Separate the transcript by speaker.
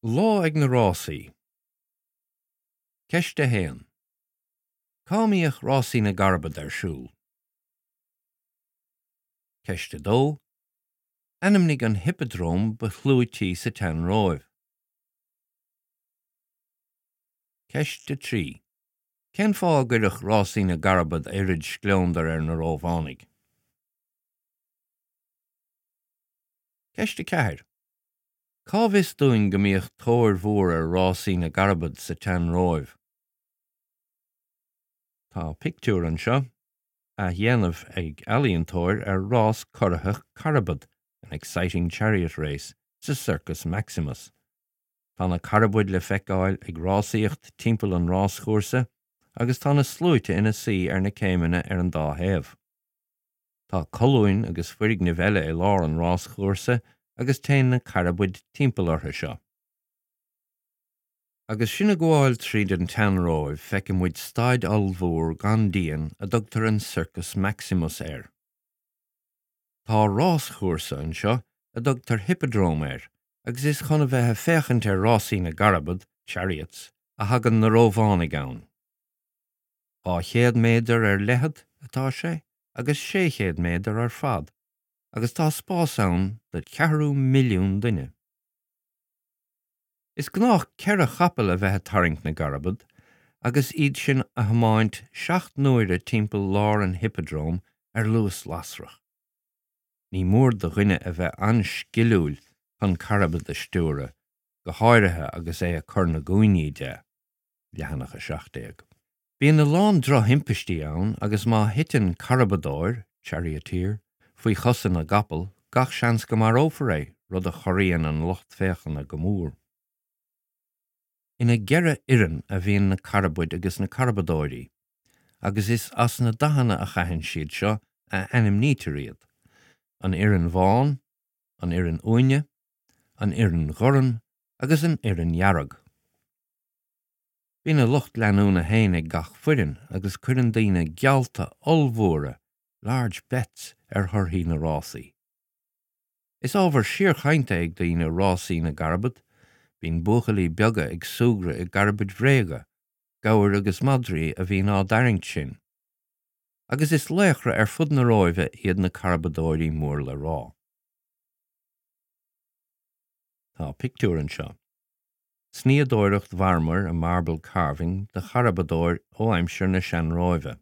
Speaker 1: Lá ag na Rásaí. Ceist 1. Cá mbíodh Rásaí na gCarbad ar siúl? Ceist 2. Ainmnigh an hippeadróm ba chlúití sa tSean-Róimh. Ceist 3. Cén fáth a gcuireadh Rásaí na gCarbad oiread scleondair ar na Rómhánaigh? Ceist 4. Cá bhfios dúinn go mbíodh tóir mhór ar rásaí na gcarbad sa tSean-Róimh? Tá pictiúr anseo, athdhéanamh ag ealaíontóir ar rás corraitheach carbad, an exciting chariot race, sa Circus Maximus. Tá na carbaid le feiceáil ag rásaíocht timpeall an ráschúrsa agus tá na sluaite ina suí ar na céimeanna ar an dá thaobh. Tá colúin agus foirgnimh eile i lár an ráschúrsa agus téann na carbaid timpeall orthu seo. Agus sinn ag gabháil tríd an tSean-Róimh feiceann muid staid ollmhór gan díon a dtugtar an Circus Maximus air. Tá ráschúrsa anseo a dtugtar hippodrome air agus is chun a bheith ag féachaint ar rásaí na gcarbad, chariots, a thagann na Rómhánaigh ann. 200 méadar ar leithead atá sé agus 600 méadar ar fad agus tá spás ann do cheathrú milliún duine. Is gnách ceithre chapall a bheith ag tarraingt na gcarbad agus iad sin a thiomáint seacht n-uaire timpeall lár an hippodrome ar luas lasrach. Ní mór do dhuine a bheith an-sciliúil chun carbad a stiúradh, go háirithe agus é ag cur na gcúinní de. Leathanach 17. Bíonn a lán drochthimpistí ann agus má thiteann carbadóir, charioteer, faoi chosa na gcapall, gach seans go marófar é, rud a chorraíonn an lucht féachana go mór. Ina gceithre fhoireann a bhíonn na carbaid agus na carbadóirí, agus is as na dathanna a chaitheann siad seo a ainmnítear iad, an fhoireann bhán, an fhoireann uaine, an fhoireann ghorm agus an fhoireann dhearg. Bíonn a lucht leanúna féin ag gach foireann agus cuireann daoine geallta ollmhóra, large bets, ar thorthaí na rásaí. Is ábhar síorchainte ag daoine rásaí na gcarbad, bíonn buachaillí beaga ag súgradh i gcarbaid bhréige, gabhair agus madraí a bhíonn á dtarraingt sin. Agus is laochra ar fud na Róimhe iad na carbadóirí mór le rá. Tá pictiúr anseo. Snoíodóireacht mharmair, a marble carving, de charbadóir ó aimsir na Sean-Róimhe.